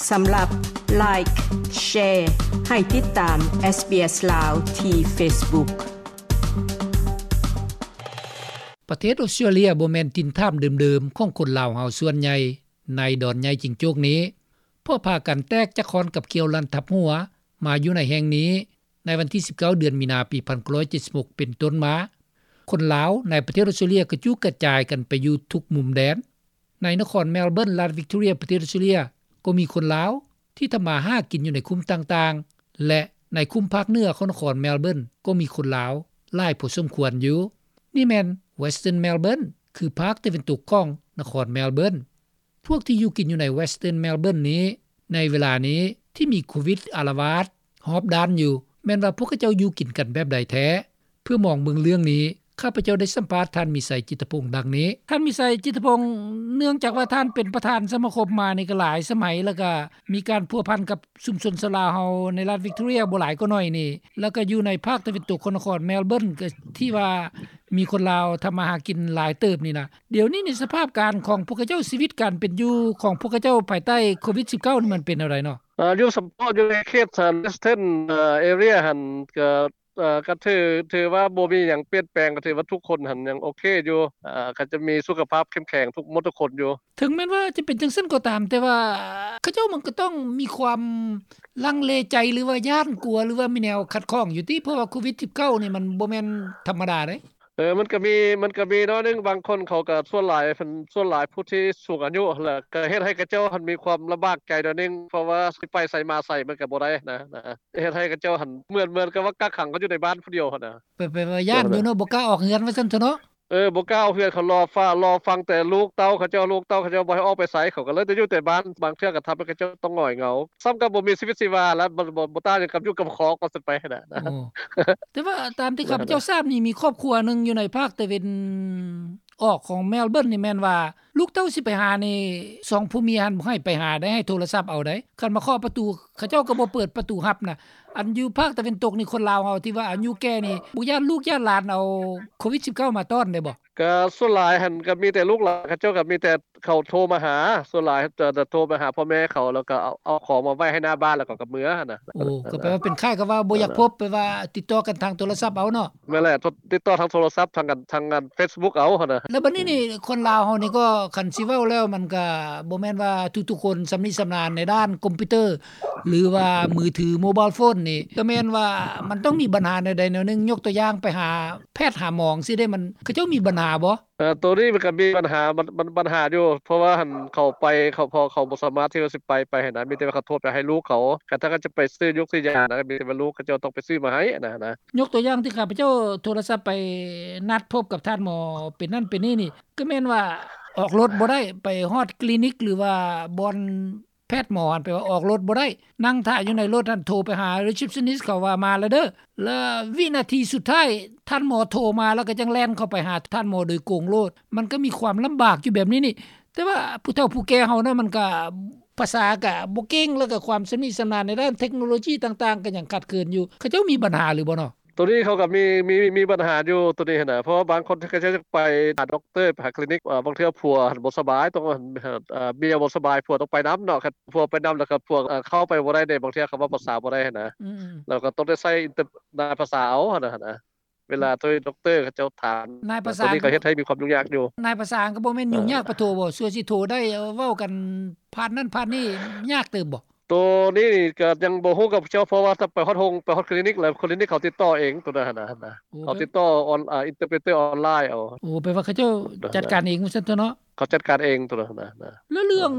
ສຳລັບ Like, Share ໃຫ້ຕິດຕາມ SBS ລາວ ທີ່ Facebook. ປະເທດອົດສະຕຣາເລຍບໍ່ແມ່ນຖິ່ນຖາມເດີມໆຂອງຄົນລາວເຮົາສ່ວນໃຫຍ່ໃນດອນໃຫຍ່ຈິງໂຈກນີ້, ເພາະພາກັນແຕກຈາກຄ້ອນກັບຂ້ຽວລັນທັບຫົວມາຢູ່ໃນແຫ່ງນີ້ ໃນວັນທີສິບເກົ້າ ເດືອນມີນາ ປີໜຶ່ງພັນເກົ້າຮ້ອຍເຈັດສິບຫົກ ເປັນຕົ້ນມາ. ຄົນລາວໃນປະເທດອົດສະຕຣາເລຍກະຈຸກກະຈາຍກັນໄປຢູ່ທຸກມຸມແດນ. ໃນນະຄອນແມລເບີນ ລັດວິກຕໍເຣຍ ປະເທດອົດສະຕຣາເລຍ ກໍມີຄົນລາວທີ່ທຳມາຫາກິນຢູ່ໃນຄຸ້ມຕ່າງໆ ແລະ ໃນຄຸ້ມພາກເໜືອຂອງນະຄອນແມລເບີນ ກໍມີຄົນລາວຫຼາຍພໍສົມຄວນຢູ່. ນີ້ແມ່ນ Western Melbourne ຄືພາກຕາເວັນຕົກຂອງນະຄອນແມລເບີນ. ພວກທີ່ຢູ່ກິນຢູ່ໃນ Western Melbourne ນີ້ ໃນເວລານີ້ທີ່ມີໂຄວິດອາລະວາດຮອບດ້ານຢູ່ ແມ່ນວ່າພວກເຂົາເຈົ້າຢູ່ກິນກັນແບບໃດແທ້? ເພື່ອມອງເບິ່ງເລື່ອງນີ້ ຂ້າພະເຈົ້າໄດ້ສຳພາດທ່ານ ມີໄຊ ຈິດຕະພົງ ດັ່ງນີ້. ທ່ານ ມີໄຊ ຈິດຕະພົງ, ເນື່ອງຈາກວ່າທ່ານເປັນປະທານສະມາຄົມມານີ້ກໍຫຼາຍສະໄໝ ແລ້ວກໍມີການພົວພັນກັບຊຸມຊົນຊາວລາວເຮົາໃນລັດວິກຕໍເຣຍບໍ່ຫຼາຍກໍໜ້ອຍນີ້ ແລ້ວກໍຢູ່ໃນພາກຕາເວັນຕົກຂອງນະຄອນແມລເບີນ ກໍທີ່ວ່າມີຄົນລາວທຳມາຫາກິນຫຼາຍເຕີບນີ້ນະ. ດຽວນີ້ນີ້ສະພາບການຂອງພວກເຂົາເຈົ້າ ຊີວິດການເປັນຢູ່ຂອງພວກເຂົາເຈົ້າພາຍໃຕ້ໂຄວິດສິບເກົ້ານີ້ມັນເປັນແນວໃດເນາະ? ອາ ຢູ່ສຳເພາະຢູ່ໃນເຂດ Western ເອີ Area ຫັ້ນ ກໍ ເອີ ກໍຖື ຖືວ່າບໍ່ມີຫຍັງປ່ຽນແປງ ກໍຖືວ່າທຸກຄົນຫັ້ນຍັງໂອເຄຢູ່ ເອີ ກໍຈະມີສຸຂະພາບເຂັ້ມແຂງທຸກໝົດທຸກຄົນຢູ່. ເຖິງແມ່ນວ່າຈະເປັນຈັ່ງຊັ້ນກໍຕາມ ແຕ່ວ່າເຂົາເຈົ້າມັນກໍຕ້ອງມີຄວາມລັງເລໃຈ ຫຼືວ່າຢ້ານກົວ ຫຼືວ່າມີແນວຂັດຂ້ອງຢູ່ຕິ ເພາະວ່າໂຄວິດສິບເກົ້ານີ້ມັນບໍ່ແມ່ນທຳມະດາເດ້. ເອີ ມັນກໍມີ ມັນກໍມີໜ້ອຍໜຶ່ງ ບາງຄົນເຂົາກໍ ສ່ວນຫຼາຍເພິ່ນ ສ່ວນຫຼາຍຜູ້ທີ່ສູງອາຍຸ ແລ້ວກໍເຮັດໃຫ້ເຂົາເຈົ້າຫັ້ນມີຄວາມລຳບາກໃຈໜ້ອຍໜຶ່ງ ເພາະວ່າຊິໄປໃສມາໃສມັນກໍບໍ່ໄດ້ນະ ນະ ເຮັດໃຫ້ເຂົາເຈົ້າຫັ້ນ ເໝືອນ ເໝືອນກັບວ່າກັກຂັງເຂົາຢູ່ໃນບ້ານຜູ້ດຽວຫັ້ນນະ. ແປ ແປວ່າຢ້ານຢູ່ເນາະ ບໍ່ກ້າອອກເຮືອນວ່າຊັ້ນເຖາະເນາະ. ເອີ ບໍ່ກ້າອອກເຮືອນ ເຂົາລໍຟ້າ ລໍຟັງແຕ່ລູກເຕົ້າເຂົາເຈົ້າ ລູກເຕົ້າເຂົາເຈົ້າບໍ່ໃຫ້ອອກໄປໃສ ເຂົາກໍເລີຍໄດ້ຢູ່ແຕ່ບ້ານ ບາງເທື່ອກໍທຳໃຫ້ເຂົາເຈົ້າຕ້ອງຫງອຍເຫງົາ ສ່ຳກັບບໍ່ມີຊີວິດຊີວາແລ້ວ ບໍ່ ບໍ່ ບໍ່ຕ່າງຫຍັງກັບຢູ່ກັບຄອກວ່າຊັ້ນໄປຫັ້ນນະ. ໂອ້ ແຕ່ວ່າຕາມທີ່ຂ້າພະເຈົ້າຊາບນີ້ ມີຄອບຄົວໜຶ່ງຢູ່ໃນພາກຕາເວັນອອກຂອງແມລເບີນນີ້ ແມ່ນວ່າ ລູກເຕົ້າຊິໄປຫານີ້ ສອງຜົວເມຍຫັ້ນບໍ່ໃຫ້ໄປຫາໄດ໋ ໃຫ້ໂທລະສັບເອົາໄດ໋ ຄັນມາເຄາະປະຕູ ເຂົາເຈົ້າກໍບໍ່ເປີດປະຕູຮັບນະ. ອັນຢູ່ພາກຕາເວັນຕົກນີ້ ຄົນລາວເຮົາທີ່ວ່າອາຍຸແກ່ນີ້ ບໍ່ຢ້ານລູກຢ້ານຫຼານເອົາໂຄວິດສິບເກົ້າມາຕ້ອນໄດ້ບໍ່? ກໍສ່ວນຫຼາຍຫັ້ນກໍມີແຕ່ລູກຫຼານ ເຂົາເຈົ້າກໍມີແຕ່ເຂົາໂທມາຫາ ສ່ວນຫຼາຍຈະ ຈະໂທມາຫາພໍ່ແມ່ເຂົາ ແລ້ວກໍເອົາ ເອົາຂອງມາໄວ້ໃຫ້ໜ້າບ້ານ ແລ້ວເຂົາກໍເມືອຫັ້ນນະ. ໂອ້ ກໍແປວ່າເປັນຄ້າຍກັບວ່າບໍ່ຢາກພົບ ແປວ່າຕິດຕໍ່ກັນທາງໂທລະສັບເອົາເນາະ. ແມ່ນແຫຼະ ຕິດຕໍ່ທາງໂທລະສັບ ທາງ ທາງ ທາງເຟສບຸກເອົາຫັ້ນນະ. ແລ້ວບັດນີ້ນີ້ ຄົນລາວເຮົານີ້ກໍ ຄັນຊິເວົ້າແລ້ວ ມັນກໍບໍ່ແມ່ນວ່າທຸກໆຄົນຊຳນິຊຳນານໃນດ້ານຄອມພິວເຕີ ຫຼືວ່າມືຖື ໂມບາຍໂຟນນີ້ ກໍແມ່ນວ່າມັນຕ້ອງມີບັນຫາແນວໃດແນວໜຶ່ງ. ຍົກຕົວຢ່າງໄປຫາແພດຫາໝໍຈັ່ງຊີ້ເດ້ ມັນ ເຂົາເຈົ້າມີບັນຫາບໍ່? ເອີ ໂຕນີ້ມັນກໍມີບັນຫາ ບັນ ບັນ ບັນຫາຢູ່ ເພາະວ່າຫັ້ນເຂົາໄປ ເຂົາ ເພາະເຂົາບໍ່ສາມາດທີ່ວ່າຊິໄປ ໄປຫັ້ນນະ ມີແຕ່ວ່າເຂົາໂທໄປໃຫ້ລູກເຂົາ ຄັນຖ້າເຂົາຈະໄປຊື້ຢົກຊື້ຢານະ ກໍມີແຕ່ວ່າລູກເຂົາເຈົ້າຕ້ອງໄປຊື້ມາໃຫ້ນະ ນະ. ຍົກຕົວຢ່າງທີ່ຂ້າພະເຈົ້າໂທລະສັບໄປນັດພົບກັບທ່ານໝໍເປັນນັ້ນເປັນນີ້ນີ້ ກໍແມ່ນວ່າອອກລົດບໍ່ໄດ້ ໄປຮອດຄລີນິກ ຫຼືວ່າບ່ອນ ແພດໝໍຫັ້ນ ແປວ່າອອກລົດບໍ່ໄດ້ ນັ່ງຖ້າຢູ່ໃນລົດຫັ້ນ ໂທໄປຫາ receptionist ເຂົາວ່າມາແລ້ວເດີ ແລ້ວວິນາທີສຸດທ້າຍ ທ່ານໝໍໂທມາ ແລ້ວກໍຈັ່ງແລ່ນເຂົ້າໄປຫາທ່ານໝໍໂດຍກົງໂລດ. ມັນກໍມີຄວາມລຳບາກຢູ່ແບບນີ້ນີ້ ແຕ່ວ່າຜູ້ເຖົ້າຜູ້ແກ່ເຮົານະ ມັນກໍ ພາສາກໍບໍ່ເກັ່ງ ແລ້ວກໍຄວາມຊຳນິຊຳນານໃນດ້ານເທັກໂນໂລຈີຕ່າງໆ ກໍຍັງຂາດເຂີນຢູ່. ເຂົາເຈົ້າມີບັນຫາຫຼືບໍ່ເນາະ? ໂຕນີ້ເຂົາກໍມີ ມີ ມີບັນຫາຢູ່ໂຕນີ້ຫັ້ນນະ ເພາະວ່າບາງຄົນເຂົາເຈົ້າຢາກໄປຫາດັອກເຕີ ໄປຫາຄລີນິກ ເອີ ບາງເທື່ອຜົວຫັ້ນບໍ່ສະບາຍ ຕ້ອງ ເອີ ເມຍບໍ່ສະບາຍ ຜົວຕ້ອງໄປນຳເນາະ ຄັນຜົວໄປນຳແລ້ວກໍຜົວ ເອີ ເຂົ້າໄປບໍ່ໄດ້ເດ້ ບາງເທື່ອເຂົາເວົ້າພາສາບໍ່ໄດ້ຫັ້ນນະ ອືມ ແລ້ວກໍຕ້ອງໄດ້ໃຊ້ນາຍພາສາເອົາຫັ້ນນະ ເວລາໂທໃຫ້ດັອກເຕີເຂົາເຈົ້າຖາມ ນາຍພາສາ ໂຕນີ້ກໍເຮັດໃຫ້ມີຄວາມຫຍຸ້ງຍາກຢູ່. ນາຍພາສາກໍບໍ່ແມ່ນຫຍຸ້ງຍາກປານໂທບໍ່? ສ່ວນຊິໂທໄດ້ເວົ້າກັນຜ່ານນັ້ນຜ່ານນີ້ຍາກເຕີບບໍ່? ໂຕນີ້ນີ້ກໍຍັງບໍ່ຮູ້ກັບເຈົ້າ ເພາະວ່າຖ້າໄປຮອດໂຮງ ໄປຮອດຄລີນິກແລ້ວ ຄລີນິກເຂົາຕິດຕໍ່ເອງໂຕນັ້ນຫັ້ນນະ ໂອ້ ເຂົາຕິດຕໍ່ອອນ ອ່າ ອິນເຕີເປຣເຕີອອນລາຍເອົາ. ໂອ້ ແປວ່າເຂົາເຈົ້າຈັດການເອງວ່າຊັ້ນເຖາະເນາະ. ເຂົາຈັດການເອງໂຕນັ້ນນະ. ແລ້ວເລື່ອງ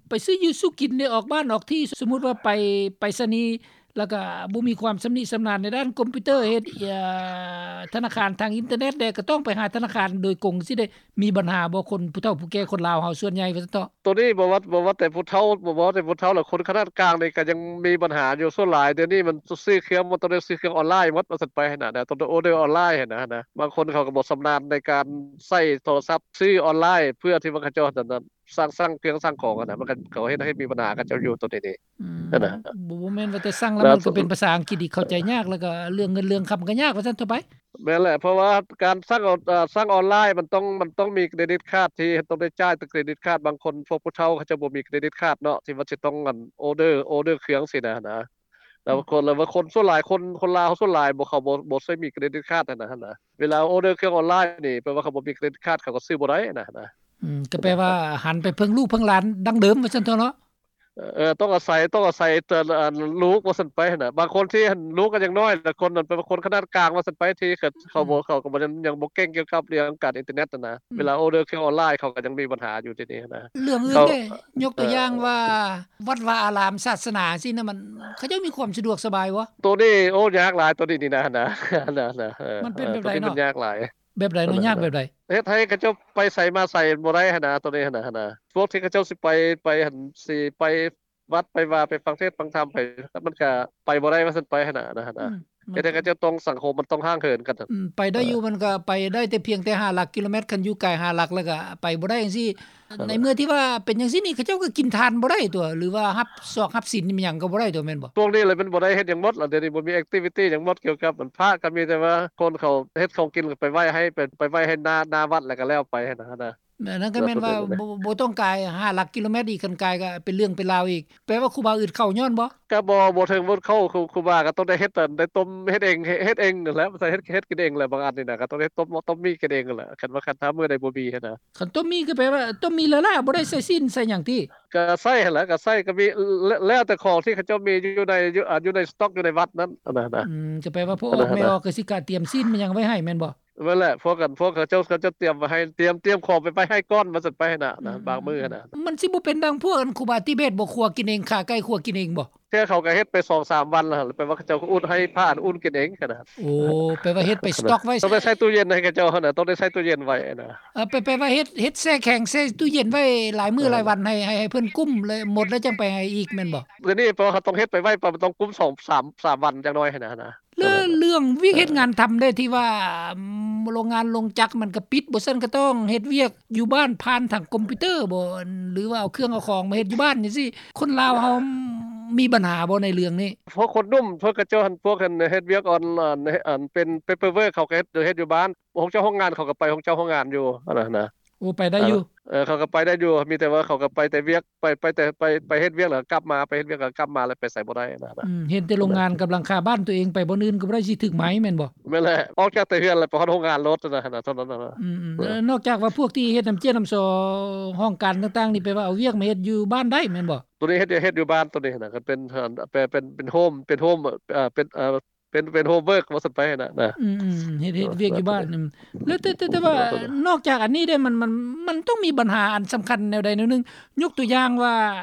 ໄປຊື້ຢູ່ຊື້ກິນໄດ້ອອກບ້ານອອກທີ່ ສົມມຸດວ່າໄປໄປສະນີ ແລ້ວກໍບໍ່ມີຄວາມຊຳນິຊຳນານໃນດ້ານຄອມພິວເຕີ ເຮັດ ເອີ ທະນາຄານທາງອິນເຕີເນັດແດ່ ກໍຕ້ອງໄປຫາທະນາຄານໂດຍກົງ ຊິໄດ້ມີບັນຫາບໍ່? ຄົນຜູ້ເຖົ້າຜູ້ແກ່ຄົນລາວເຮົາສ່ວນໃຫຍ່ວ່າຊັ້ນເຖາະ. ໂຕນີ້ບໍ່ວ່າ ບໍ່ວ່າແຕ່ຜູ້ເຖົ້າ ບໍ່ວ່າແຕ່ຜູ້ເຖົ້າແລ້ວ ຄົນຂະໜາດກາງນີ້ກໍຍັງມີບັນຫາຢູ່. ສ່ວນຫຼາຍດຽວນີ້ມັນຊື້ເຄື່ອງ ມັນຕ້ອງໄດ້ຊື້ເຄື່ອງອອນລາຍໝົດວ່າຊັ້ນໄປຫັ້ນນະ ຕ້ອງໄດ້ອໍເດີອອນລາຍຫັ້ນນະ. ບາງຄົນເຂົາກໍບໍ່ຊຳນານໃນການໃຊ້ໂທລະສັບ ຊື້ອອນລາຍ ເພື່ອທີ່ວ່າເຂົາເຈົ້າ ສັ່ງ ສັ່ງເຄື່ອງສັ່ງຂອງຫັ້ນນະ ມັນກໍ ເຂົາເຮັດໃຫ້ມີບັນຫາກັບເຂົາເຈົ້າຢູ່ໂຕນີ້ເດ້. ອືມ ຫັ້ນນະ ບໍ່ ບໍ່ແມ່ນວ່າແຕ່ສັ່ງແລ້ວ ແລ້ວມັນກໍເປັນພາສາອັງກິດທີ່ເຂົ້າໃຈຍາກ ແລ້ວກໍເລື່ອງເງິນເລື່ອງຄຳກໍຍາກວ່າຊັ້ນເຖາະໄປ. ແມ່ນແຫຼະ ເພາະວ່າການສັ່ງອອນ ເອີ່ ສັ່ງອອນລາຍມັນຕ້ອງ ມັນຕ້ອງມີເຄຣດິດຄາດ ທີ່ຕ້ອງໄດ້ຈ່າຍເປັນເຄຣດິດຄາດ. ບາງຄົນພວກຜູ້ເຖົ້າເຂົາເຈົ້າບໍ່ມີເຄຣດິດຄາດເນາະ ທີ່ວ່າຊິຕ້ອງອັນ ອໍເດີ ອໍເດີເຄື່ອງຊີ້ນະ ນະ. ແລ້ວ ອືມ ຄົນ ແລ້ວວ່າຄົນສ່ວນຫຼາຍ ຄົນ ຄົນລາວເຮົາສ່ວນຫຼາຍບໍ່ ເຂົາບໍ່ ບໍ່ໃຊ້ມີເຄຣດິດຄາດຫັ້ນນະ ຫັ້ນນະ. ເວລາອໍເດີເຄື່ອງອອນລາຍນີ້ ແປວ່າເຂົາບໍ່ມີເຄຣດິດຄາດ ເຂົາກໍຊື້ບໍ່ໄດ້ນະ ຫັ້ນນະ. ອືມ ກໍແປວ່າຫັນໄປເພິ່ງລູກເພິ່ງຫຼານດັ່ງເດີມວ່າຊັ້ນເຖາະເນາະ. ເອີ ຕ້ອງອາໄສ ຕ້ອງອາໄສແຕ່ ອັນ ລູກວ່າຊັ້ນໄປຫັ້ນນະ. ບາງຄົນທີ່ ອັນ ລູກກໍຍັງນ້ອຍ ແລະ ຄົນນັ້ນເປັນຄົນຂະໜາດກາງວ່າຊັ້ນໄປ ທີ່ເຂົາ ເຂົາບໍ່ ອືມ ເຂົາກໍບໍ່ ຍັງ ຍັງບໍ່ເກັ່ງກ່ຽວກັບເລື່ອງການອິນເຕີເນັດຫັ້ນນະ. ອືມ ເວລາອໍເດີເຄື່ອງອອນລາຍ ເຂົາກໍຍັງມີບັນຫາຢູ່ທີ່ນີ້ຫັ້ນນະ. ເລື່ອງອື່ນເດ້ ຍົກຕົວຢ່າງວ່າ ເອີ ວັດວາອາລາມ ສາສະໜາຊີ້ນະ ມັນ ເຂົາເຈົ້າມີຄວາມສະດວກສະບາຍບໍ່? ໂຕນີ້ ໂອ້ ຍາກຫຼາຍ ໂຕນີ້ນີ້ນະ ຫັ້ນນະ ຫັ້ນນະ ເອີ ມັນເປັນແບບໃດເນາະ? ໂຕນີ້ມັນຍາກຫຼາຍ. ແບບໃດເນາະ? ເອີ ຍາກແບບໃດ? ເຮັດໃຫ້ເຂົາເຈົ້າໄປໃສມາໃສບໍ່ໄດ້ຫັ້ນນະ ໂຕນີ້ຫັ້ນນະ ຫັ້ນນະ. ພວກທີ່ເຂົາເຈົ້າຊິໄປ ໄປຫັ້ນ ຊິໄປວັດ ໄປວາ ໄປຟັງເທດຟັງທຳ ໄປ ມັນກະໄປບໍ່ໄດ້ວ່າຊັ້ນໄປຫັ້ນນະ ຫັ້ນນະ. ອືມ ເຮັດໃຫ້ເຂົາເຈົ້າຕ້ອງ ສັງຄົມມັນຕ້ອງຫ່າງເຫີນກັນ. ອືມ ໄປໄດ້ຢູ່ ເອີ ມັນກະໄປໄດ້ແຕ່ພຽງແຕ່ຫ້າຫຼັກກິໂລແມັດ ຄັນຢູ່ໄກຫ້າຫຼັກແລ້ວກະໄປບໍ່ໄດ້ຈັ່ງຊີ້. ໃນເມື່ອທີ່ວ່າເປັນຈັ່ງຊີ້ນີ້ ເຂົາເຈົ້າກໍກິນທານບໍ່ໄດ້ຕົວະ ຫຼືວ່າຮັບຊອກຮັບສິນຫຍັງກໍບໍ່ໄດ້ຕົວະ ແມ່ນບໍ່? ຊ່ວງນີ້ລະມັນບໍ່ໄດ້ເຮັດຫຍັງໝົດລະ ດຽວນີ້ບໍ່ມີແອກທິວິຕີຫຍັງໝົດ ກ່ຽວກັບອັນພະ ກໍມີແຕ່ວ່າຄົນເຂົາເຮັດຂອງກິນກໍໄປໄວ້ໃຫ້ ໄປ ໄປໄວ້ໃຫ້ໜ້າ ໜ້າວັດແລ້ວກໍແລ້ວໄປຫັ້ນນະ. ແມ່ນ ນັ້ນກໍແມ່ນວ່າ ແມ່ນ ບໍ່ ບໍ່ຕ້ອງກາຍຫ້າຫຼັກກິໂລແມັດອີກ ຄັນກາຍກໍເປັນເລື່ອງເປັນລາວອີກ. ແປວ່າຄູບາອຶດເຂົ້າຍ້ອນບໍ່? ກໍບໍ່ ບໍ່ເຖິງບໍ່ເຂົ້າ ຄູ ຄູບາກໍຕ້ອງໄດ້ເຮັດ ໄດ້ຕົ້ມເຮັດເອງ ເຮັດ ເຮັດເອງນັ້ນແຫຼະ ໃສ່ເຮັດ ເຮັດກິນເອງແຫຼະ. ບາງອັນນີ້ນະ ກໍຕ້ອງໄດ້ຕົ້ມ ຕົ້ມໝີ່ກິນເອງແຫຼະ ຄັນວ່າ ຄັນຖ້າມື້ໃດບໍ່ມີຫັ້ນນະ. ຄັນຕົ້ມໝີ່ກໍແປວ່າຕົ້ມໝີ່ລ້າໆ ບໍ່ໄດ້ໃສ່ຊີ້ນໃສ່ຫຍັງຕິ? ກໍໃສ່ຫັ້ນແຫຼະ ກໍໃສ່ ກໍມີ ແລ້ວ ແລ້ວແຕ່ຂອງທີ່ເຂົາເຈົ້າມີຢູ່ໃນ ຢູ່ ອ່າ ຢູ່ໃນສະຕັອກຢູ່ໃນວັດນັ້ນ ອັນນັ້ນນະ. ອືມ ກໍແປວ່າພໍ່ອອກແມ່ອອກກໍຊິກະຕຽມຊີ້ນມາຫຍັງໄວ້ໃຫ້ແມ່ນບໍ່? ແມ່ນແຫຼະ ພວກກັນ ພວກເຂົາເຈົ້າ ເຂົາເຈົ້າຕຽມໄວ້ໃຫ້ ຕຽມ ຕຽມຂອງໄປໄວ້ໃຫ້ກ່ອນວ່າຊັ້ນໄປຫັ້ນນະ ອືມ ບາງມື້ຫັ້ນນະ. ມັນຊິບໍ່ເປັນດັ່ງພວກອັນຄູບາຕິເບດບໍ່ ຄົວກິນເອງ ຂາໄກ່ຄົວກິນເອງບໍ່? ແຕ່ເຂົາກໍເຮັດໄປສອງສາມວັນແລ້ວ ແປວ່າເຂົາເຈົ້າກໍອຸດໃຫ້ພະອັນອຸ່ນກິນເອງຫັ້ນນະ. ໂອ້ ແປວ່າເຮັດໄປສະຕັອກໄວ້ ຕ້ອງໄດ້ໃສ່ຕູ້ເຢັນໃຫ້ເຂົາເຈົ້າຫັ້ນນະ ຕ້ອງໄດ້ໃສ່ຕູ້ເຢັນໄວ້ນະ. ເອີ ແປ ແປວ່າເຮັດ ເຮັດແຊ່ແຂງ ແຊ່ຕູ້ເຢັນໄວ້ຫຼາຍມື້ ເອີ ຫຼາຍວັນ ໃຫ້ ໃຫ້ ໃຫ້ເພິ່ນກຸ້ມ ແລ້ວໝົດແລ້ວຈັ່ງໄປໃຫ້ອີກແມ່ນບໍ່? ດຽວນີ້ເພາະເຂົາຕ້ອງເຮັດໄປໄວ້ ເພາະມັນຕ້ອງກຸ້ມສອງ ສາມ ສາມວັນຢ່າງໜ້ອຍຫັ້ນນະ ຫັ້ນນະ. ແລ້ວເລື່ອງວຽກເຮັດງານທຳເດ້ ທີ່ວ່າ ໂຮງງານໂຮງຈັກມັນກໍປິດ ບໍ່ຊັ້ນກໍຕ້ອງເຮັດວຽກຢູ່ບ້ານຜ່ານທາງຄອມພິວເຕີບໍ່ ຫຼືວ່າເອົາເຄື່ອງເອົາຂອງມາເຮັດຢູ່ບ້ານຈັ່ງຊີ້ ຄົນລາວເຮົາມີບັນຫາບໍ່ໃນເລື່ອງນີ້? ພວກຄົນໜຸ່ມ ພວກເຂົາເຈົ້າຫັ້ນ ພວກອັນເຮັດວຽກອອນ ອັນ ອັນເປັນ ເປເປີເວີກ ເຂົາກໍເຮັດ ເຮັດຢູ່ບ້ານ ພວກເຈົ້າໂຮງງານເຂົາກໍໄປຂອງເຈົ້າໂຮງງານຢູ່ ຫັ້ນນະ. ໂອ້ ໄປໄດ້ຢູ່ ເອີ ເຂົາກໍໄປໄດ້ຢູ່ ມີແຕ່ວ່າເຂົາກໍໄປແຕ່ວຽກ ໄປ ໄປແຕ່ ໄປ ໄປເຮັດວຽກແລ້ວກັບມາ ໄປເຮັດວຽກແລ້ວກັບມາ ແລ້ວໄປໃສບໍ່ໄດ້ນະ. ອືມ ເຫັນແຕ່ໂຮງງານກຳລັງຄາບ້ານຕົວເອງ ໄປບ່ອນອື່ນກໍບໍ່ໄດ້ ຊິຖືກໄໝແມ່ນບໍ່? ແມ່ນແຫຼະ ອອກຈາກແຕ່ເຮືອນແລ້ວ ໄປຮອດໂຮງງານໂລດນະ ເທົ່ານັ້ນນະ. ອືມໆ ເອີ ແລ້ວນອກຈາກວ່າພວກທີ່ເຮັດນ້ຳເຈ້ຍນ້ຳຊໍຫ້ອງການຕ່າງໆນີ້ ແປວ່າເອົາວຽກມາເຮັດຢູ່ບ້ານໄດ້ແມ່ນບໍ່? ໂຕນີ້ເຮັດ ເຮັດຢູ່ບ້ານໂຕນີ້ນະ ກໍເປັນ ເປັນ ເປັນ ເປັນໂຮມ ເປັນໂຮມ ເປັນ ເປັນ ເປັນໂຮມເວີກວ່າຊັ້ນໄປນະ. ອືມໆ ເຮັດ ເຮັດວຽກຢູ່ບ້ານ. ແລ້ວແຕ່ ແຕ່ ແຕ່ວ່ານອກຈາກອັນນີ້ເດ້ ມັນ ມັນ ມັນຕ້ອງມີບັນຫາອັນສຳຄັນແນວໃດແນວໜຶ່ງ ຍົກຕົວຢ່າງວ່າ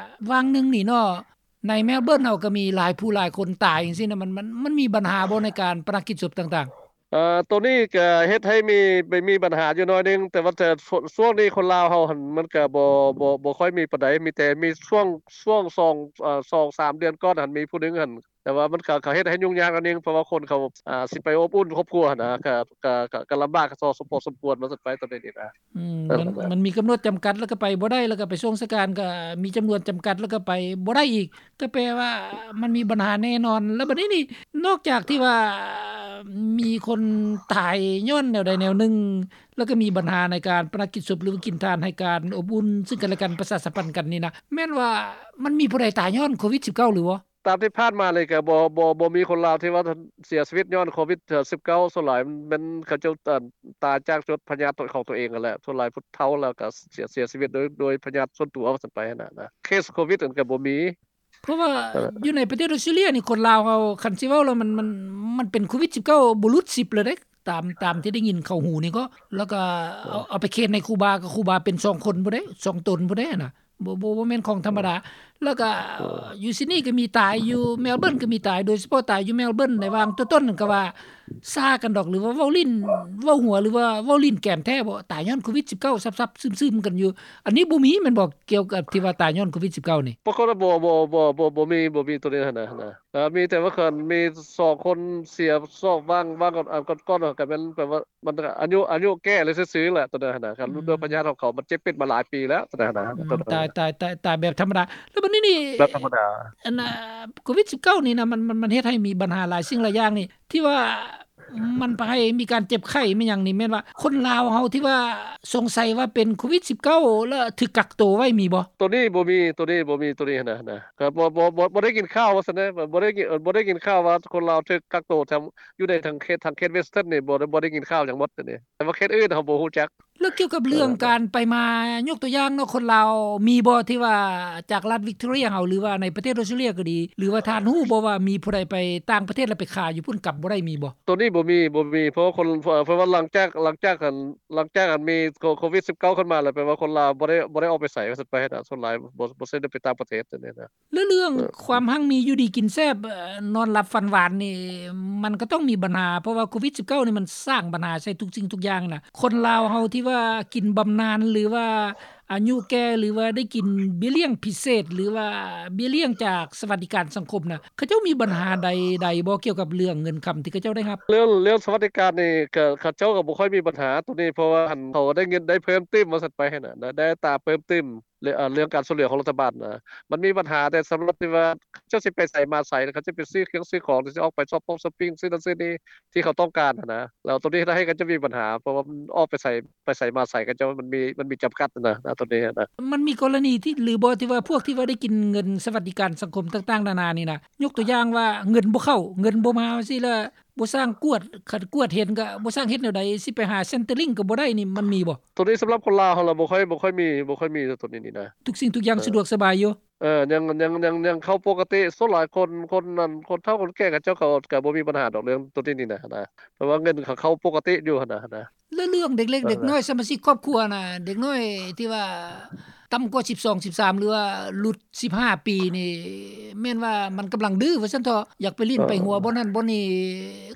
ຫວ່າງໜຶ່ງນີ້ເນາະ ໃນແມລເບີນເຮົາກໍມີຫຼາຍຜູ້ຫຼາຍຄົນຕາຍຈັ່ງຊີ້ນະ ມັນ ມັນ ມັນມີບັນຫາບໍ່ໃນການປະນະກິດສົບຕ່າງໆ? ເອີ ໂຕນີ້ກໍເຮັດໃຫ້ມີ ມີບັນຫາຢູ່ໜ້ອຍໜຶ່ງ ແຕ່ວ່າ ແຕ່ ຊ່ວງນີ້ຄົນລາວເຮົາຫັ້ນ ມັນກໍບໍ່ ບໍ່ ບໍ່ຄ່ອຍມີປານໃດ ມີແຕ່ມີຊ່ວງ ຊ່ວງສອງ ເອີ ສອງສາມເດືອນກ່ອນຫັ້ນ ມີຜູ້ໜຶ່ງຫັ້ນ ແຕ່ວ່າມັນກໍ ກໍເຮັດໃຫ້ຫຍຸ້ງຍາກໜ້ອຍໜຶ່ງ ເພາະວ່າຄົນເຂົາ ອ່າ ຊິໄປອົບອຸ່ນຄອບຄົວຫັ້ນນະ ກໍ ກໍ ກໍ ກໍລຳບາກພໍສົມຄວນວ່າຊັ້ນໄປ ຕອນນີ້ນີ້ນະ. ອືມ ມັນ ມັນມີກຳນົດຈຳກັດ ແລ້ວກໍໄປບໍ່ໄດ້ ແລ້ວກໍໄປຊ່ວງສະການກໍມີຈຳນວນຈຳກັດ ແລ້ວກໍໄປບໍ່ໄດ້ອີກ ກໍແປວ່າມັນມີບັນຫາແນ່ນອນ. ແລ້ວບັດນີ້ນີ້ ນອກຈາກທີ່ວ່າມີຄົນຕາຍຍ້ອນແນວໃດແນວໜຶ່ງ ແລ້ວກໍມີບັນຫາໃນການປະນະກິດສົບ ຫຼືວ່າກິນທານໃຫ້ການອົບອຸ່ນຊຶ່ງກັນແລະກັນ ປະຊາສຳພັນກັນນີ້ນະ ແມ່ນວ່າມັນມີຜູ້ໃດຕາຍຍ້ອນໂຄວິດສິບເກົ້າ ຫຼືບໍ່? ຕາມທີ່ຜ່ານມານີ້ກໍບໍ່ ບໍ່ ບໍ່ມີຄົນລາວທີ່ວ່າເສຍຊີວິດຍ້ອນໂຄວິດສິບເກົ້າ ສ່ວນຫຼາຍແມ່ນເຂົາເຈົ້າ ເອີ່ ຕາຍຈາກຈຸດພະຍາດຂອງຕົວເອງຫັ້ນແຫຼະ ສ່ວນຫຼາຍຜູ້ເຖົ້າແລ້ວກໍເສຍ ເສຍຊີວິດໂດຍ ໂດຍພະຍາດສ່ວນຕົວວ່າຊັ້ນໄປຫັ້ນນະ ເຄສໂຄວິດນັ້ນກໍບໍ່ມີ. ເພາະວ່າຢູ່ໃນປະເທດອອສເຕຣເລຍນີ້ ຄົນລາວເຮົາ ຄັນຊິເວົ້າແລ້ວ ມັນ ມັນ ມັນເປັນໂຄວິດສິບເກົ້າ ບໍ່ຫຼຸດສິບເລີຍເດ້ ຕາມ ຕາມທີ່ໄດ້ຍິນເຂົ້າຫູນີ້ກໍ ແລ້ວກໍເອົາ ເອີ ເອົາໄປເຄສໃນຄູບາ ກໍຄູບາເປັນສອງຄົນພຸ້ນເດ້ ສອງຕົນພຸ້ນເດ້ນະ ບໍ່ ບໍ່ ບໍ່ແມ່ນຂອງທຳມະດາ. ແລ້ວກໍ ເອີ ຢູ່ຊິດນີກໍມີຕາຍ ຢູ່ແມລເບີນກໍມີຕາຍ ໂດຍສະເພາະຕາຍຢູ່ແມລເບີນ ໃນຫວ່າງຕົ້ນໆນັ້ນກໍວ່າຊ້າກັນດອກ ຫຼືວ່າເວົ້າຫຼິ້ນ ເວົ້າຫົວ ຫຼືວ່າເວົ້າຫຼິ້ນແກມແທ້ບໍ່ ຕາຍຍ້ອນໂຄວິດສິບເກົ້າ ຊັບໆຊຶມໆກັນຢູ່. ອັນນີ້ບໍ່ມີແມ່ນບໍ່ ກ່ຽວກັບທີ່ວ່າຕາຍຍ້ອນໂຄວິດສິບເກົ້ານີ້? ປາກົດວ່າບໍ່ ບໍ່ ບໍ່ ບໍ່ ບໍ່ມີ ບໍ່ມີໂຕນີ້ຫັ້ນນະ ເອີ ມີແຕ່ວ່າຄັນມີສອງຄົນເສຍ ສອງຫວ່າງ ຫວ່າງກ່ອນ ອັນກ່ອນໆ ກໍແມ່ນແບບວ່າ ມັນອາຍຸ ອາຍຸແກ່ແລ້ວຊື່ໆແຫຼະ ໂຕນັ້ນນະ ຄັນ ອືມ ໂລກພະຍາດຂອງເຂົາ ມັນເຈັບເປັນມາຫຼາຍປີແລ້ວ ໂຕນັ້ນນະ. ອືມ ຕາຍ ຕາຍ ຕາຍ ຕາຍແບບທຳມະດາ. ແລ້ວບັດນີ້ນີ້ ແບບທຳມະດາ ອັນ ອ່າ ໂຄວິດສິບເກົ້ານີ້ນະ ມັນ ມັນ ມັນເຮັດໃຫ້ມີບັນຫາຫຼາຍສິ່ງຫຼາຍຢ່າງນີ້ ທີ່ວ່າ ມັນໄປໃຫ້ມີການເຈັບໄຂ້ ມີຫຍັງນີ້ ແມ່ນວ່າຄົນລາວເຮົາທີ່ວ່າສົງໄສວ່າເປັນໂຄວິດສິບເກົ້າ ແລ້ວຖືກກັກໂຕໄວ້ມີບໍ່? ໂຕນີ້ບໍ່ມີ ໂຕນີ້ບໍ່ມີ ໂຕນີ້ນະ ນະ ກໍບໍ່ ບໍ່ ບໍ່ ບໍ່ໄດ້ຍິນຂ່າວວ່າຊັ້ນເດ ບໍ່ໄດ້ຍິນ ບໍ່ໄດ້ຍິນຂ່າວວ່າຄົນລາວຖືກກັກໂຕ ຢູ່ໃນທາງເຂດ ທາງເຂດ Western ນີ້ ບໍ່ ບໍ່ໄດ້ຍິນຂ່າວຫຍັງໝົດ ໂຕນີ້ ແຕ່ວ່າເຂດອື່ນເຮົາບໍ່ຮູ້ຈັກ. ແລ້ວກ່ຽວກັບເລື່ອງ ເອີ ການໄປມາ ຍົກຕົວຢ່າງເນາະ ຄົນລາວມີບໍ່ ທີ່ວ່າຈາກລັດ Victoria ເຮົາ ຫຼືວ່າໃນປະເທດ Australia ກໍດີ ຫຼືວ່າທ່ານຮູ້ບໍ່ວ່າມີຜູ້ໃດໄປຕ່າງປະເທດ ແລ້ວໄປຄາຢູ່ພຸ້ນ ກັບບໍ່ໄດ້ ມີບໍ່? ໂຕນີ້ບໍ່ມີ ບໍ່ມີ ເພາະວ່າຄົນ ເພາະວ່າຫຼັງຈາກ ຫຼັງຈາກອັນ ຫຼັງຈາກອັນມີໂຄ ໂຄວິດສິບເກົ້າຂຶ້ນມາແລ້ວ ແປວ່າຄົນລາວບໍ່ໄດ້ ບໍ່ໄດ້ອອກໄປໃສວ່າຊັ້ນໄປນະ ສ່ວນຫຼາຍບໍ່ ບໍ່ ບໍ່ໄດ້ໄປຕ່າງປະເທດ ແນວນີ້ນະ. ແລ້ວເລື່ອງ ເອີ ຄວາມຮັ່ງມີຢູ່ດີກິນແຊບ ເອີ ນອນຫຼັບຝັນຫວານນີ້ ມັນກໍຕ້ອງມີບັນຫາ ເພາະວ່າໂຄວິດສິບເກົ້ານີ້ມັນສ້າງບັນຫາໃສ່ທຸກສິ່ງທຸກຢ່າງນະ. ຄົນລາວເຮົາທີ່ວ່າກິນບຳນານ ຫຼືວ່າອາຍຸແກ່ ຫຼືວ່າໄດ້ກິນເບ້ຍລ້ຽງພິເສດ ຫຼືວ່າເບ້ຍລ້ຽງຈາກສະຫວັດດີການສັງຄົມນະ ເຂົາເຈົ້າມີບັນຫາໃດໆບໍ່ ກ່ຽວກັບເລື່ອງເງິນຄຳທີ່ເຂົາເຈົ້າໄດ້ຮັບ? ເລື່ອງ ເລື່ອງສະຫວັດດີການນີ້ ກໍ ເຂົາເຈົ້າກໍບໍ່ຄ່ອຍມີບັນຫາໂຕນີ້ ເພາະວ່າ ອັນ ເຂົາໄດ້ເງິນ ໄດ້ເພີ່ມຕື່ມວ່າຊັ້ນໄປຫັ້ນນະ ໄດ້ ໄດ້ອັດຕາເພີ່ມຕື່ມ ເລື່ອງ ເລື່ອງການຊ່ວຍເຫຼືອຂອງລັດຖະບານນະ ມັນມີບັນຫາແຕ່ສຳລັບທີ່ວ່າເຂົາເຈົ້າຊິໄປໃສມາໃສ ເຂົາຈະໄປຊື້ເຄື່ອງຊື້ຂອງ ຫຼືຊິອອກໄປຊັອບປົງຊັອບປິງ ຊື້ນັ້ນຊື້ນີ້ທີ່ເຂົາຕ້ອງການຫັ້ນນະ. ແລ້ວໂຕນີ້ເຮັດໃຫ້ເຂົາເຈົ້າມີບັນຫາ ເພາະວ່າມັນອອກໄປໃສ ໄປໃສມາໃສ ເຂົາເຈົ້າມັນມີ ມັນມີຈຳກັດຫັ້ນນະ ໂຕນີ້ນະ. ມັນມີກໍລະນີທີ່ ຫຼືບໍ່ ທີ່ວ່າພວກທີ່ວ່າໄດ້ກິນເງິນສະຫວັດດີການສັງຄົມຕ່າງໆນານານີ້ນະ ຍົກຕົວຢ່າງວ່າເງິນບໍ່ເຂົ້າ ເງິນບໍ່ມາ ຈັ່ງຊີ້ ແລ້ວ ບໍ່ສ້າງກວດ ຄັນກວດເຫັນກໍບໍ່ສ້າງເຮັດແນວໃດ ຊິໄປຫາ Centrelink ກໍບໍ່ໄດ້ນີ້ ມັນມີບໍ່? ໂຕນີ້ສຳລັບຄົນລາວເຮົາລະບໍ່ຄ່ອຍ ບໍ່ຄ່ອຍມີ ບໍ່ຄ່ອຍມີໂຕນີ້ນີ້ນະ. ທຸກສິ່ງທຸກຢ່າງ ເອີ ສະດວກສະບາຍຢູ່. ເອີ ຍັງ ຍັງ ຍັງ ຍັງເຂົ້າປົກກະຕິ ສ່ວນຫຼາຍຄົນ ຄົນນັ້ນ ຄົນເຖົ້າຄົນແກ່ເຂົາເຈົ້າ ເຂົາກໍບໍ່ມີບັນຫາດອກເລື່ອງໂຕນີ້ນີ້ນະ ນະ ເພາະວ່າເງິນເຂົາເຂົ້າປົກກະຕິຢູ່ຫັ້ນນະ ນະ. ແລ້ວເລື່ອງເດັກເລັກ ເອີ ເດັກນ້ອຍ ສະມາຊິກຄອບຄົວນະ ເດັກນ້ອຍທີ່ວ່າຕ່ຳກວ່າສິບສອງ ສິບສາມ ຫຼືວ່າຫຼຸດສິບຫ້າປີນີ້ ແມ່ນວ່າມັນກຳລັງດື້ວ່າຊັ້ນເຖາະ ຢາກໄປຫຼິ້ນ ເອີ ໄປຫົວບ່ອນນັ້ນບ່ອນນີ້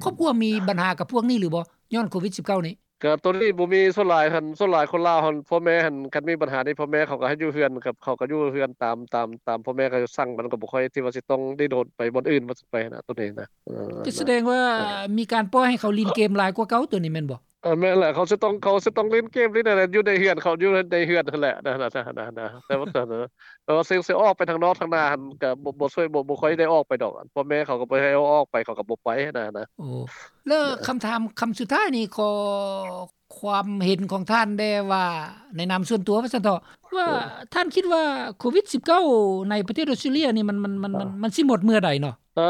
ຄອບຄົວມີບັນຫາກັບພວກນີ້ຫຼືບໍ່ ຍ້ອນໂຄວິດສິບເກົ້ານີ້? ກໍໂຕນີ້ບໍ່ມີ ສ່ວນຫຼາຍຫັ້ນ ສ່ວນຫຼາຍຄົນລາວຫັ້ນ ພໍ່ແມ່ຫັ້ນ ຄັນມີບັນຫານີ້ ພໍ່ແມ່ເຂົາກໍໃຫ້ຢູ່ເຮືອນ ກັບເຂົາກໍຢູ່ເຮືອນຕາມ ຕາມ ຕາມພໍ່ແມ່ເຂົາສັ່ງ ມັນກໍບໍ່ຄ່ອຍທີ່ວ່າຊິຕ້ອງດີ້ນຮົນໄປບ່ອນອື່ນວ່າຊັ້ນໄປນະ ໂຕນີ້ນະ. ເອີ ກໍສະແດງວ່າ ເອີ ມີການປ່ອຍໃຫ້ເຂົາຫຼິ້ນເກມຫຼາຍກວ່າເກົ່າ ໂຕນີ້ແມ່ນບໍ່? ເອີ ແມ່ນແຫຼະ ເຂົາຊິຕ້ອງ ເຂົາຊິຕ້ອງຫຼິ້ນເກມນີ້ແຫຼະ ຢູ່ໃນເຮືອນເຂົາ ຢູ່ໃນເຮືອນຫັ້ນແຫຼະນະ ນະ ນະ ນະ ແຕ່ວ່າ ແຕ່ວ່າຊິ ຊິອອກໄປທາງນອກທາງໜ້າຫັ້ນ ກໍບໍ່ ບໍ່ຊ່ວຍ ບໍ່ ບໍ່ຄ່ອຍໄດ້ອອກໄປດອກ ພໍ່ແມ່ເຂົາກໍບໍ່ໃຫ້ເອົາອອກໄປ ເຂົາກໍບໍ່ໄປນະ ນະ. ໂອ້ ແລ້ວຄຳຖາມຄຳສຸດທ້າຍນີ້ ຂໍຄວາມເຫັນຂອງທ່ານແດ່ວ່າ ໃນນາມສ່ວນຕົວວ່າຊັ້ນເຖາະ ວ່າ ເອີ ທ່ານຄິດວ່າໂຄວິດສິບເກົ້າໃນປະເທດອອສເຕຣເລຍນີ້ ມັນ ມັນ ມັນ ເອີ ມັນ ມັນຊິໝົດເມື່ອໃດເນາະ? ເອີ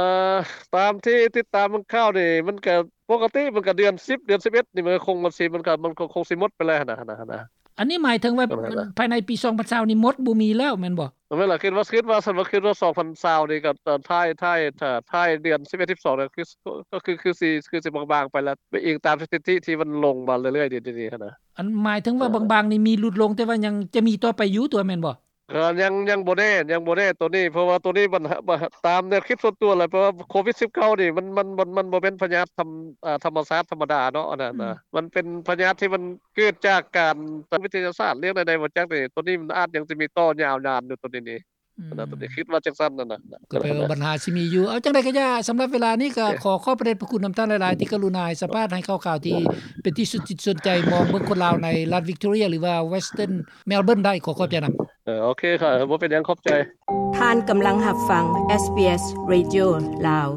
ຕາມທີ່ຕິດຕາມເບິ່ງຂ່າວນີ້ ມັນກໍປົກກະຕິ ມັນກໍເດືອນສິບ ເດືອນສິບເອັດນີ້ ມັນກໍຄົງ ມັນຊິ ມັນກໍ ມັນກໍຄົງຊິໝົດໄປແລ້ວຫັ້ນນະ ຫັ້ນນະ. ອັນນີ້ໝາຍເຖິງວ່າ ເອີ ພາຍໃນປີສອງພັນຊາວນີ້ໝົດ ບໍ່ມີແລ້ວແມ່ນບໍ່? ແມ່ນລະ ຄິດວ່າ ຄິດວ່າຊັ້ນ ວ່າຄິດວ່າສອງພັນຊາວນີ້ກໍ ເອີ ທ້າຍ ທ້າຍ ທ້າຍເດືອນສິບເອັດ ສິບສອງນີ້ ຄື ກໍຄື ຄືຊິ ຄືຊິບາງໆໄປແລ້ວ ໄປອີງຕາມສະຖິຕິທີ່ມັນລົງມາເລື້ອຍໆ ດຽວນີ້ຫັ້ນນະ. ອັນໝາຍເຖິງວ່າ ເອີ ບາງໆນີ້ມີຫຼຸດລົງ ແຕ່ວ່າຍັງຈະມີຕໍ່ໄປຢູ່ຕົວະ ແມ່ນບໍ່? ກໍຍັງ ຍັງບໍ່ແນ່ ຍັງບໍ່ແນ່ໂຕນີ້ ເພາະວ່າໂຕນີ້ມັນ ຕາມແນວຄິດສ່ວນຕົວແຫຼະ ເພາະວ່າໂຄວິດສິບເກົ້ານີ້ ມັນ ມັນ ມັນ ມັນບໍ່ແມ່ນພະຍາດທຳ ອ່າ ທຳມະຊາດທຳມະດາເນາະ ອັນນັ້ນນະ ອືມ ມັນເປັນພະຍາດທີ່ມັນເກີດຈາກການ ຕາມວິທະຍາສາດ ເລື່ອງໃດໆບໍ່ຈັກນີ້ ໂຕນີ້ມັນອາດຍັງຊິມີຕໍ່ຍາວນານຢູ່ ໂຕນີ້ນີ້ ອືມ ອັນນັ້ນ ໂຕນີ້ຄິດວ່າຈັ່ງຊັ້ນນັ້ນນະ ກໍແປວ່າບັນຫາຊິມີຢູ່. ເອົາ ຈັ່ງໃດກໍຢ່າ ສຳລັບເວລານີ້ກໍ ໂອເຄ ຂໍຂອບພະເດດພະຄຸນນຳທ່ານຫຼາຍໆ ທີ່ກະລຸນາໃຫ້ສຳພາດ ໃຫ້ຂ່າວໆທີ່ເປັນທີ່ສົນຈິດສົນໃຈ ມອງເບິ່ງຄົນລາວໃນລັດວິກຕໍເຣຍ ຫຼືວ່າ Western Melbourne ໄດ້. ຂໍຂອບໃຈນຳ. ເອີ ໂອເຄ ບໍ່ເປັນຫຍັງ ຂອບໃຈ. ທ່ານກຳລັງຮັບຟັງ SBS Radio ລາວ.